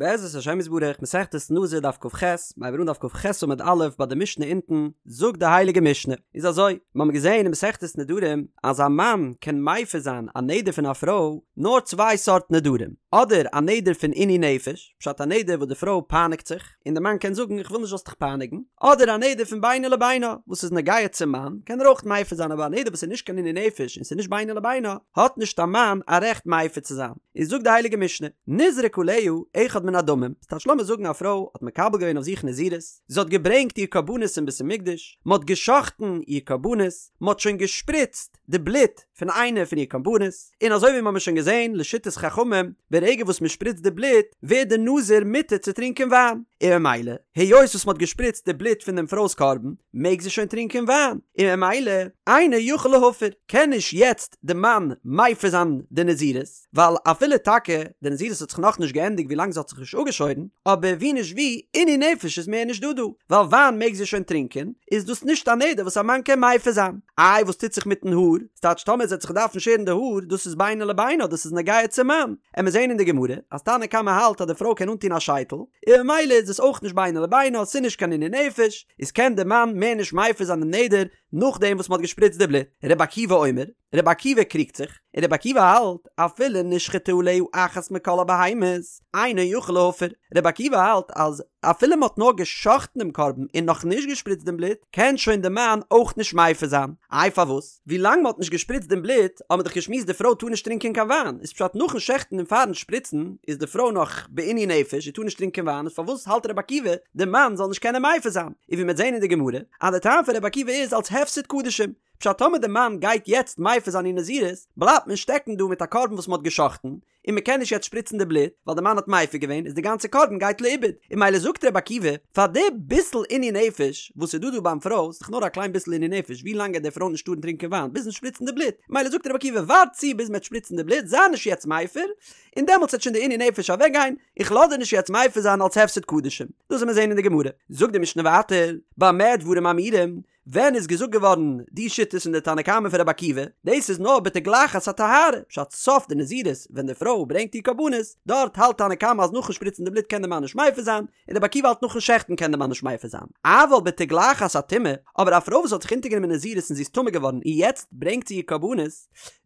בעזרת השם יתברך, מסכת נזיר דף כ"ח, מיר הייבן אן דף כ"ח עמוד א' ביי די משנה אונטן, זאגט די הייליגע משנה, איז אזוי, מיר האבן געזען אין מסכת נדרים אז א מאן קען מפר זיין א נדר פון א פרוי נאר צוויי סארט נדרים, אדער א נדר פון עינוי נפש, פשט א נדר וואס די פרוי פייניגט זיך, און די מאן קען זאגן איך וויל נישט זאלסט דיך פייניגן, אדער א נדר פון בינו לבינה וואס איז נוגע צום מאן, קען ער אויך מפר זיין אבער א נדר וואס איז נישט קיין עינוי נפש און ס'איז נישט בינו לבינה, האט נישט א מאן א רעכט מפר צו זיין. איז זאגט די הייליגע משנה, נזרק עליה אחד מן הדמים, ס'טייטש לאמיר זאגן א פרוי האט מקבל געווען אויף זיך נזירות, זי האט געברענגט איר קרבנות אין בית המקדש, מען האט גע'שחט'ן איר קרבנות, מען האט שוין געשפריצט די בלוט פון איינע פון איר קרבנות, און אזוי ווי מיר האבן שוין געזען לשיטת חכמים, ברגע וואס מען שפריצט די בלוט ווערט די נזיר מותר צו טרינקען וויין, און ממילא היות וואס מען האט געשפריצט די בלוט פון דעם פרוי'ס קרבן מעג זי שוין טרינקען וויין, און ממילא אינו יכול להפר, קען נישט יעצט די מאן מפר זיין די נזירות, ווייל אפילו טאקע די נזירות האט זיך נאכנישט געענדיגט ווילאנג זי האט זיך נישט אפגעשוירן, אבער ווי נישט ווי, עינוי נפש איז מער נישט דא דא, ווייל וויין מעג זי שוין טרינקען, איז דאס נישט א נדר וואס א מאן קען מפר זיין. איי וואס טוט זיך מיטן האר? ס'טייטש טאמער זי וועט זיך דארפן שערן די האר, דאס איז בינו לבינה, דאס איז נוגע צום מאן. עמיר זעהן אין די גמרא אז תנא קמא האלט אז די פרוי קען אנטון א שייטל, און ממילא איז עס אויך נישט בינו לבינה, ס'איז נישט קיין עינוי נפש, איז קען די מאן מער נישט מפר זיין דעם נדר, נאכדעם וואס מ'האט געשפריצט די בלוט. רבי עקיבא אומר, רבי עקיבא קריגט זיך, און רבי עקיבא האלט, אפילו נשחטה עליה אחת מכל הבהמות, אינו יכול להפר. רבי עקיבא האלט אז אפילו מ'האט נאר גע'שחט'ן דעם קרבן און נאך נישט געשפריצט דעם בלוט, קען שוין די מאן אויך נישט מפר זיין. איי פארוואס? ווילאנג מ'האט נישט געשפריצט דעם בלוט, האט מען דאך געשמועסט די פרוי טאר נישט טרינקען קיין וויין, איז פשט נאכן שעכטן און פארן שפריצן איז די פרוי נאך בעינוי נפש, זי טאר נישט טרינקען וויין, איז פארוואס האלט רבי עקיבא די מאן זאל נישט קענען מפר זיין? און ווי מ'וועט זען אין די גמרא, אז די טעם פון רבי עקיבא איז אלס הפסד קדשים, פשט טאמער די מאן גייט יעצט מפר זיין איר נזירות, בלייבט מען שטעקן דא מיט א קרבן וואס מ'האט גע'שחט'ן, און מ'קען נישט יעצט שפריצן די בלוט, ווייל די מאן האט מפר געווען, איז די גאנצע קרבן גייט לאיבוד, און ממילא זאגט רבי עקיבא, פאר די ביסל עינוי נפש וואס איז דא דא ביים פרוי, איז דאך נאר א קליין ביסל עינוי נפש, ווי לאנג גייט די פרוי נישט טארן טרינקען וויין, ביזן שפריצן די בלוט, ממילא זאגט רבי עקיבא ווארט צו ביז מ'עט שפריצן די בלוט, זיי נישט יעצט מפר, און דעמאלטס וועט שוין די עינוי נפש אוועק גיין, איך לאז דיר נישט יעצט מפר זיין אלס הפסד קדשים. דאס וועט מען זען אין די גמרא. זאגט די משנה ווייטער, במה דברים אמורים, ווען איז געזאגט געווארן די שיטות פון די תנא קמא פון רבי עקיבא, דאס איז נאר בתגלחת הטהרה, פשט סוף די נזירות ווען די פרוי ברענגט איר קרבנות, דארט האלט תנא קמא אז נאכן שפריצן די בלוט קען די מאן נישט מפר זיין, און רבי עקיבא האלט נאכן שעכטן קען די מאן נישט מפר זיין. אבל בתגלחת הטומאה, אבער א פרוי וואס האט זיך אונטערגענומען נזירות און זי איז טמא געווארן און יעצט ברענגט זי איר קרבנות,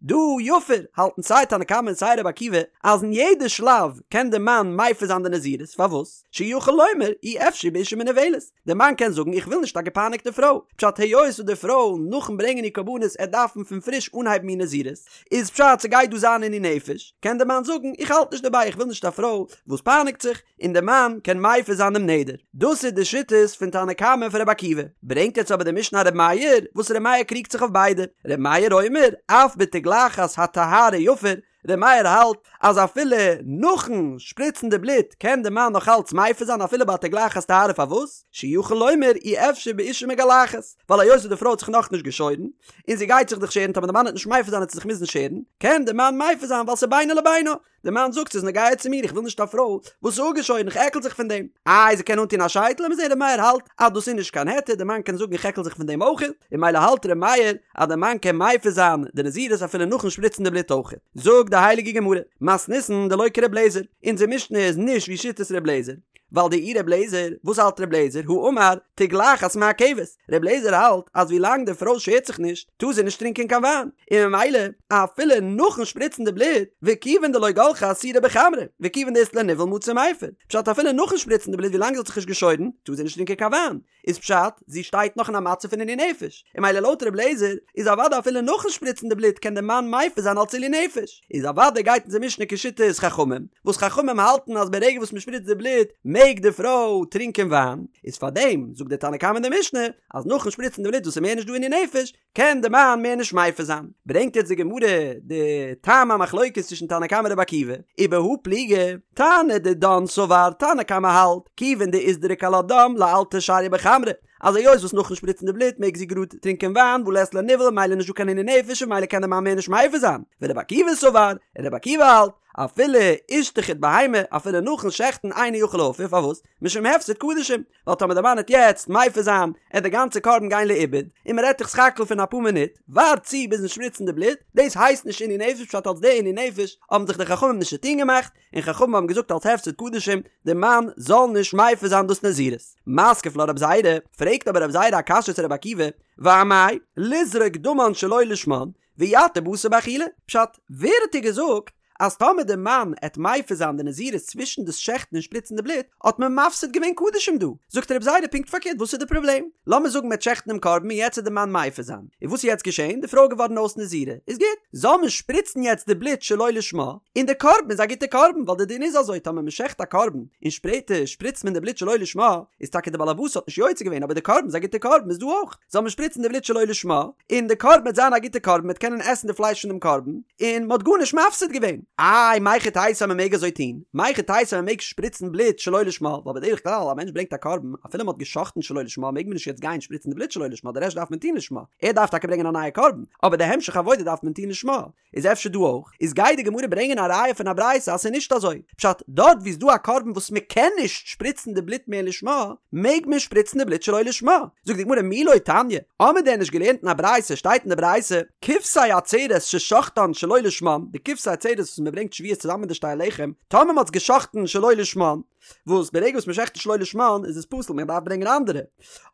דא יפר, האלטן סיי תנא קמא און סיי רבי עקיבא אז אין יעדע שלב קען די מאן מפר זיין די נזירות, פארוואס? שיכול לומר אי אפשי באשה מנוולת, די מאן קען זאגן איך וויל נישט א געפייניגטע פרוי, פשט היות וואס די פרוי נאכן ברענגען איר קרבנות עט דארפן פון פריש אנהייבן איר נזירות, איז פשט ס'גייט דא זיין עינוי נפש, קען די מאן זאגן איך האלט נישט דערביי איך וויל נישט א פרוי וואס פייניגט זיך, און די מאן קען מפר זיין דעם נדר. דאס איז די שיטות פון תנא קמא און פון רבי עקיבא. ברענגט יעצט אבער די משנה א רבי מאיר, וואס רבי מאיר קריגט זיך אויף ביידע. רבי מאיר אומר, אף בתגלחת הטהרה יפר, רבי מאיר האלט אז אפילו נאכן שפריצן די בלוט קען די מאן נאך אלץ מפר זיין אפילו ביי תגלחת טהרה פארוואס? שיכול לומר אי אפשי באשה מגלחת, ווייל היות וואס די פרוי האט זיך נאכנישט געשוירן, און זי גייט זיך דאך שערן טאמער די מאן וועט נישט מפר זיין וועט זי זיך מוזן שערן, קען די מאן מפר זיין ווייל ס'איז בינו לבינה. די מאן זאגט ס'איז נוגע צו מיר איך וויל נישט א פרוי וואס איז אפגעשוירן איך עקל זיך פון דעם. איי זי קען אנטון א שייטל לאמיר זעהן ר' מאיר האלט אז דאס איז נישט קיין היתר די מאן קען זאגן איך עקל זיך פון דעם אויך און ממילא האלט ר' מאיר אז די מאן קען מפר זיין די נזירות אפילו נאכן שפריצן די בלוט אויך. זאגט די הייליגע גמרא, מתניתין דלא כר' לעזער, אונזער משנה איז נישט ווי שיטת ר' לעזער, ווייל דאי ר' לעזער, וואס האלט ר' לעזער, הא אמר, תגלחת מעכבת, ר' לעזער האלט אז ווי לאנג די פרוי שערט זיך נישט טאר זי נישט טרינקען קיין וויין, און ממילא אפילו נאכן שפריצן די בלוט, וכיוון דלא גלחה אסירא בחמרא, וכיוון דאית לה ניוול מצי מיפר, פשט אפילו נאכן שפריצן די בלוט ווי לאנג זי האט זיך נישט געשוירן טאר זי נישט טרינקען קיין וויין, איז פשט זי שטייט נאך אין א מצב פון עינוי נפש, און ממילא לויט ר' לעזער איז אוודאי אפילו נאכן שפריצן די בלוט קען די מאן מפר זיין אלץ עילוי נפש, איז אוודאי גייט אונזער משנה כשיטת חכמים, וואס חכמים האלטן אז ברגע וואס מ'שפריצט די בלוט מעג די פרוי טרינקען וויין, איז פארדעם זאגט דער תנא קמא אין די משנה אז נאכן שפריצן די בלוט וואס איז מער נישט דא עינוי נפש, קען די מאן מער נישט מפר זיין. ברענגט יעצט די גמרא די טעם המחלוקת צווישן תנא קמא און רבי עקיבא, ובהא פליגי, תנא דידן סבר, תנא קמא האלט, כיוון דאיזדריק עלה דם לאלתר שריא בחמרא, אז היות וואס נאכן שפריצן די בלוט מעג זי גראד טרינקען וויין והא לית לה ניוול ממילא נישט דא קיין עינוי נפש און ממילא קען די מאן מער נישט מפר זיין, ורבי עקיבא סבר, און רבי עקיבא האלט, אפילו אישתחיט בהמה, אפילו נאכן שעכטן אינו יכול להפר, פארוואס? משום הפסד קדשים, ווייל טאמער די מאן העט יעצט מפר זיין, עט די גאנצע קרבן גיין לאיבוד, און מען רעדט דאך סך הכל פון אפאר מינוט, ווארט צו ביזן שפריצן די בלוט, דאס הייסט נישט עינוי נפש פשט אלס די עינוי נפש האבן זיך די חכמים נישט צוטון געמאכט, און חכמים האבן געזאגט אלס הפסד קדשים, די מאן זאל נישט מפר זיין דאס נזירות. מתקיף לה רב זירא, פרעגט אבער רב זירא א קשיא צו רבי עקיבא, ואמאי, לזרוק דמן שלא לשמן, ויתיר בשר באכילה, פשט, ווער האט דיר געזאגט אז טאמער די מאן עט מפר זיין די נזירות צווישן דאס שעכטן און שפריצן די בלוט, האט מען מפסיד געווען קדשים דא? זאגט רב זירא פונקט פארקערט וואס איז די פראבלעם? לאמיר זאגן מ'עט שעכטן דעם קרבן און יעצט עט די מאן מפר זיין, און וואס איז יעצט געשען? די פרוי איז געווארן אויס נזירה, איז גוט, זאל מען שפריצן יעצט די בלוט שלא לשמה, און די קרבן איז א גוטע קרבן, ווייל די דין איז אזוי טאמער מ'שעכט א קרבן און שפעטער שפריצט מען די בלוט שלא לשמה, איז טאקע די בעל הבית האט נישט יוצא געווען אבער די קרבן איז א גוטע קרבן איז דא אויך. זאל מען שפריצן די בלוט שלא לשמה, און די קרבן וועט זיין א גוטע קרבן, מ'וועט קענען עסן די פלייש פון דעם קרבן, און מ'האט גארנישט מפסיד געווען. איי, מהיכי תיתי אז מ'מעג אזוי טון? מהיכי תיתי אז מ'מעג שפריצן בלוט שלא לשמה? ווייל בדרך כלל א מענטש ברענגט א קרבן, אפילו מ'האט גע'שחט'ן שלא לשמה מעג מען נישט יעצט גיין שפריצן די בלוט שלא לשמה, די רעשט דארף מען טון לשמה. ער דארף טאקע ברענגען א נייע קרבן, אבער די המשך עבודה דארף מען טון לשמה. איז אפשר דא אויך? איז גייט די גמרא ברענגען א ראיה פון א ברייתא אז ס'איז נישט אזוי. פשט, דארט וואו איז דא א קרבן וואס מ'קען נישט שפריצן די בלוט מער לשמה, מעג מען שפריצן די בלוט שלא לשמה. זאגט די גמרא מי לא תניא, האמיר דען נישט געלערנט אין א ברייתא, שטייט אין די ברייתא, כבשי עצרת ששחטן שלא לשמן, די כבשי עצרת וואס מ'ברענגט שבועות צוזאמען מיט די שתי הלחם, טאמער מ'האט עס געשחט'ן שלא לשמן, וואס ברגע וואס מ'שחט שלא לשמן איז עס פסול מען דארף ברענגען אנדערע,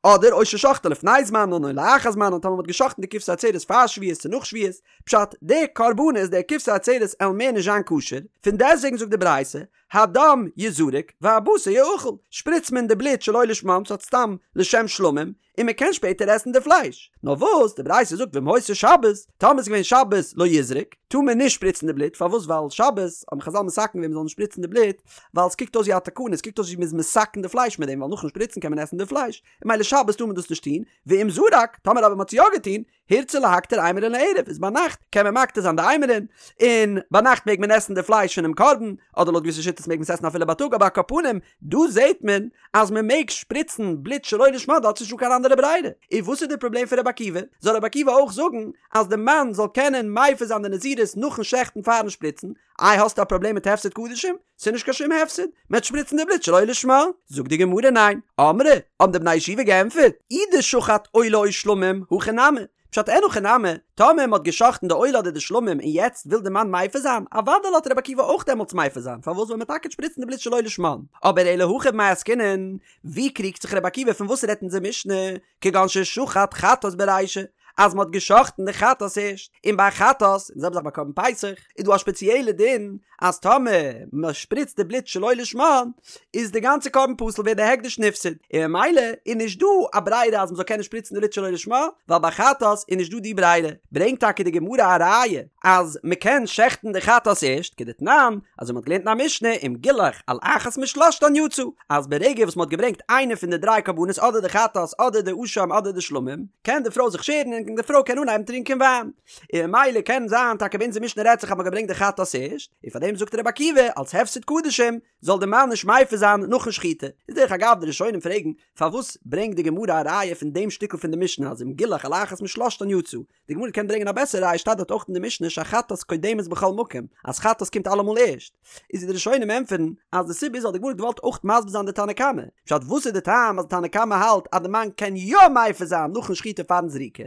אדער או ששחטן לפני זמנן או לאחר זמנן טאמער מ'האט געשחט'ן די כבשי עצרת פאר שבועות צו נאך שבועות, פשט, די קרבנות, די כבשי עצרת עלן מער נישט זיין כשר, פון דעסטוועגן זאגט די ברייתא, הדם יזרק והבשר יאכל, שפריצט מען די בלוט שלא לשמם ס'האט סתם לשם שלמים, און מען קען שפעטער עסן די פלייש. נאר וואס, די ברייתא זאגט ואם היתה שבת, טאמער איז געווען שבת לא יזרוק, טאר מען נישט שפריצן די בלוט, פארוואס ווייל שבת האבן חזל מתקן געווען מען זאל נישט שפריצן די בלוט, ווייל עס קוקט אויס ווי א תקנה, עס קוקט אויס ווי מען איז מתקן די פלייש מיט דעם, ווייל נאכן שפריצן קען מען עסן די פלייש, און ממילא שבת טאר מען דאס נישט טון, ואם זרק, טאמער אבער מען האט עס יא געטון, הורצה להקטיר אימורין לערב איז ביינאכט קען מען מקטיר זיין די אימורין, און ביינאכט מעג מען עסן די פלייש פונעם קרבן, אדער לויט געוויסע שיטות מעג מען עס עסן אפילו בייטאג אבער על כל פנים דא זעט מען אז מען מעג שפריצן בלוט שלא לשמה דארט איז נישטא קיין אנדערע ברירה, און וואס איז די פראבלעם פון רבי עקיבא? זאל רבי עקיבא אויך זאגן אז די מאן זאל קענען מפר זיין די נזירות נאכן שעכטן פארן שפריצן, איי האסטו א פראבלעם מיט הפסד קדשים? ס'איז נישט קיין שום הפסד, מ'עט שפריצן די בלוט שלא לשמה. זאגט די גמרא ניין. אמרי, האבן די בני ישיבה געענטפערט, אי דשחט עולה או שלמים, הכי נמי. פשט אין הכי נמי, טאמער מ'האט גע'שחט'ן די עולה אדער די שלמים און יעצט וויל די מאן מפר זיין, אוודאי לאזט רבי עקיבא אויך דעמאלטס מפר זיין, פארוואס ווייל מ'עט טאקע שפריצן די בלוט שלא לשמן. אבער אלא הכא במאי עסקינן, ווי קריגט זיך רבי עקיבא פון וואס רעדט אונזער משנה? כגון ששחט חטאת ברישא, אז מ'האט גע'שחט'ן די חטאת ערשט, און ביי חטאת, און די זעלבע זאך ביי קרבן פסח, איז דא א שפעציעלע דין אז טאמער מ'שפריצט די בלוט שלא לשמן, איז די גאנצע קרבן פסול ווערט די הקדש נפסד, און ממילא איז נישט דא א ברירה אז מ'זאל קענען שפריצן די בלוט שלא לשמה, ווייל ביי חטאת איז נישט דא די ברירה. ברענגט טאקע די גמרא א ראיה אז מ'קען שעכטן די חטאת ערשט, כדתנן, אזוי מ'האט געלערנט אין א משנה, אם גילח על אחת משלשתן יצא, אז ברגע וואס מ'האט געברענגט איינע פון די דריי קרבנות אדער די חטאת אדער די אשם אדער די שלמים, קען די פרוי זיך שערן און די פרוי קען אנהייבן טרינקען וויין. און ממילא קען זיין טאקע ביי אונזער משנה רעדט זיך אז מ'האט געברענגט די חטאת ערשט, און פארדעם זאגט רבי עקיבא אלס הפסד קדשים זאל די מאן נישט מפר זיין נאכן שחיטה. איז דרך אגב די ראשונים פרעגן פארוואס ברענגט די גמרא א ראיה פון דעם שטיקל פון די משנה אז אם גילח על אחת משלשתן יצא, די גמרא קען ברענגען א בעסערע ראיה שטייט דארט אויך אין די משנה שהחטאת קודמת בכל מקום אז חטאת קומט אלעמאל ערשט איז די ראשונים ענטפערן אז די סיבה איז ווייל די גמרא האט געוואלט אויך מסביר זיין די תנא קמא פשט וואס איז די טעם אז די תנא קמא האלט אז די מאן קען יא מפר זיין נאכן שחיטה פארן זריקה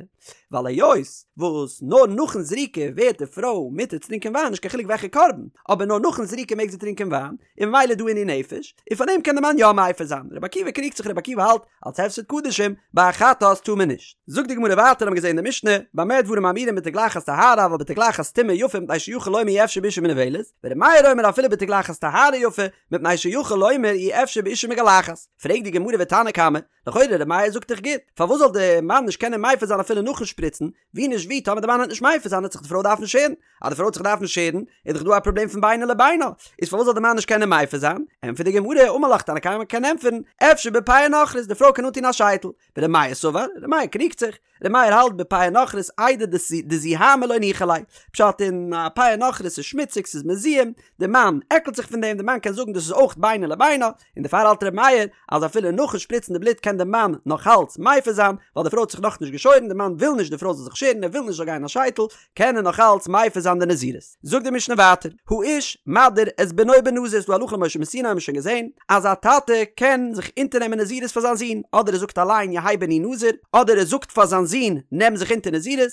ווייל היות וואס נאר נאכן זריקה ווערט די פרוי מותר צו טרינקען וויין נישט קיין חילוק וועלכע קרבן אבער נאר נאכן זריקה מעג זי טרינקען וויין און ממילא איז דא עינוי נפש און פאר דעם קען די מאן יא מפר זיין רבי עקיבא קריגט זיך רבי עקיבא האלט אלס הפסד קדשים, ביי א חטאת טאר מען נישט. זאגט די גמרא ווייטער האבן געזען אין די משנה, במה דברים אמורים בתגלחת טהרה אבל בתגלחת טומאה יפה מפני שיכול לומר אי אפשי באשה מנוולת, ור' מאיר אומר אפילו בתגלחת טהרה יפה מפני שיכול לומר אי אפשי באשה מגלחת. פרעגט די גמרא ותנא קמא, לכאורה ר' מאיר זאגט דאך גוט, פארוואס זאל די מאן נישט קענען מפר זיין אפילו נאכן שפריצן, ווי נישט ווי טאמער די מאן וועט נישט מפר זיין וועט זיך די פרוי דארפן שערן, אז די פרוי וועט זיך דארפן שערן איז דאך דא א פראבלעם פון בינו לבינה, איז פארוואס זאל די מאן נישט קענען מפר זיין? ענטפערט די גמרא, אמר לך תנא קמא קען ענטפערן, אפשר בפאה נכרית, די פרוי קען אנטון א שייטל, ור' מאיר סבר, ר' מאיר קריגט זיך, ר' מאיר האלט בפאה נכרית איידי דזוהמא לא ניחא ליה, פשט אין א פאה נכרית איז שמוציג ס'איז מזוהם, די מאן עקלט זיך פון דעם, די מאן קען זאגן דאס איז אויך בינו לבינה, און דערפאר האלט ר' מאיר אז אפילו נאכן שפריצן די בלוט קען. קען די מאן נאך אלץ מפר זיין, ווייל די פרוי האט זיך נאכנישט געשוירן, די מאן וויל נישט די פרוי זאל זיך שערן, ער וויל נישט זאל גיין א שייטל, קען ער נאך אלץ מפר זיין די נזירות. זאגט די משנה ווייטער, האיש מדיר את בנו בנזיר, ס'דא הלכה למשה מסיני האבן מיר שוין געזען, אז א טאטע קען זיך אונטערנעמען נזירות פאר זיין זון, אדער ער זאגט אליין יהא בני נזיר, אדער ער זאגט פאר זיין זון נעם זיך אונטער נזירות,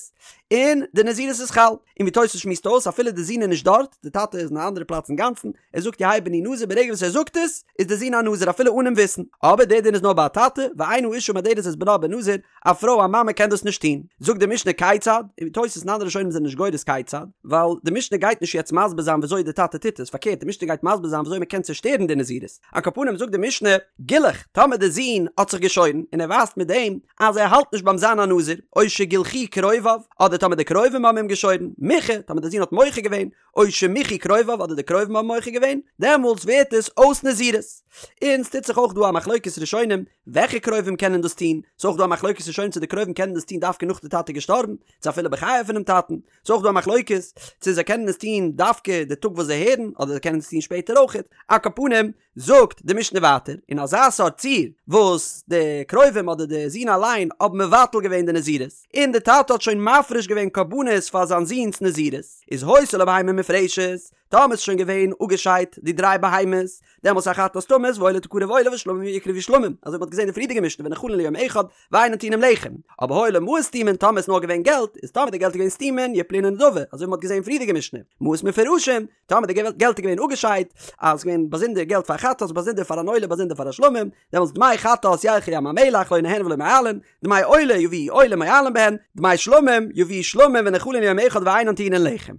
און די נזירות איז חל. און ווי תוס' שמועסט אויס אפילו די זון איז נישט דארט, די טאטע איז אין א אנדערע פלאץ אינגאנצן, ער זאגט יהא בני נזיר ברגע וואס ער זאגט עס, איז די זון א נזיר אפילו אן אים וויסן. אבער דער דין איז נאר ביי א טאטע, ואין האשה מדרת את בנה בנזיר, א פרוי א מאמע קען דאס נישט טון. זאגט די משנה כיצד, און תוס' און אנדערע ראשונים זענען נישט גורס כיצד, ווייל די משנה גייט נישט יעצט מסביר זיין וויאזוי די טאטע טוט עס, פארקערט די משנה גייט מסביר זיין וויאזוי מען קען צושטערן די נזירות. על כל פנים זאגט די משנה, גילח, טאמער די זון האט זיך געשוירן, און ער ווייזט מיט דעם אז ער האלט נישט ביים זיין א נזיר, או שגילחוהו קרוביו, אדער טאמער די קרובים האבן אים געשוירן, מיחה, טאמער די זון האט מוחה געווען, או שמיחו קרוביו אדער די קרובים האבן מוחה געווען, דעמאלטס ווערט עס אויס נזירות. און ס'טוט זיך אויך דא א מחלוקת ראשונים וועלכע קרובים קענען דאס טון, ס'איז אויך דא א מחלוקת ראשונים צו די קרובים קענען דאס טון דווקא נאך די טאטע איז געשטארבן, צו אפילו בחייו פונעם טאטן, ס'איז אויך דא א מחלוקת צו זיי קענען עס טון דווקא די טאג וואס זיי הערן, אדער זיי קענען עס טון שפעטער אויכעט. על כל פנים, זאגט די משנה ווייטער, אין אזא סארט ציור וואס די קרובים אדער די זון אליין האבן מבטל געווען די נזירות, און די טאטע האט שוין מפריש געווען קרבנות פאר זיין זון'ס נזירות, איז היתה לו בהמה מופרשת, טאמער איז שוין געווען אפגעשיידט די דריי בהמות, דעמאלס החטאת תמות והעולה תקרב עולה והשלמים יקרבו שלמים, אזוי ווי מ'האט געזען אין די פריערדיגע משנה ונאכלין ליום אחד ואינן טעונין לחם, אבער היו לו מעות סתומין טאמער איז נאר געווען געלט, איז טאמער די געלט איז געווען סתומין יפלו לנדבה, אזוי ווי מ'האט געזען אין פריערדיגע משנה, מעות מפורשים, טאמער די געלט איז געווען אפגעשיידט, אז עס איז געווען באזונדער געלט פאר חטאת, באזונדער פאר אן עולה, באזונדער פאר א שלמים, דעמאלטס דמי חטאת ילכו לים המלח לא נהנין ולא מועלין, דמי עולה יביאו עולה מועלין בהן, דמי שלמים יביאו שלמים ונאכלין ליום אחד ואינן טעונין לחם.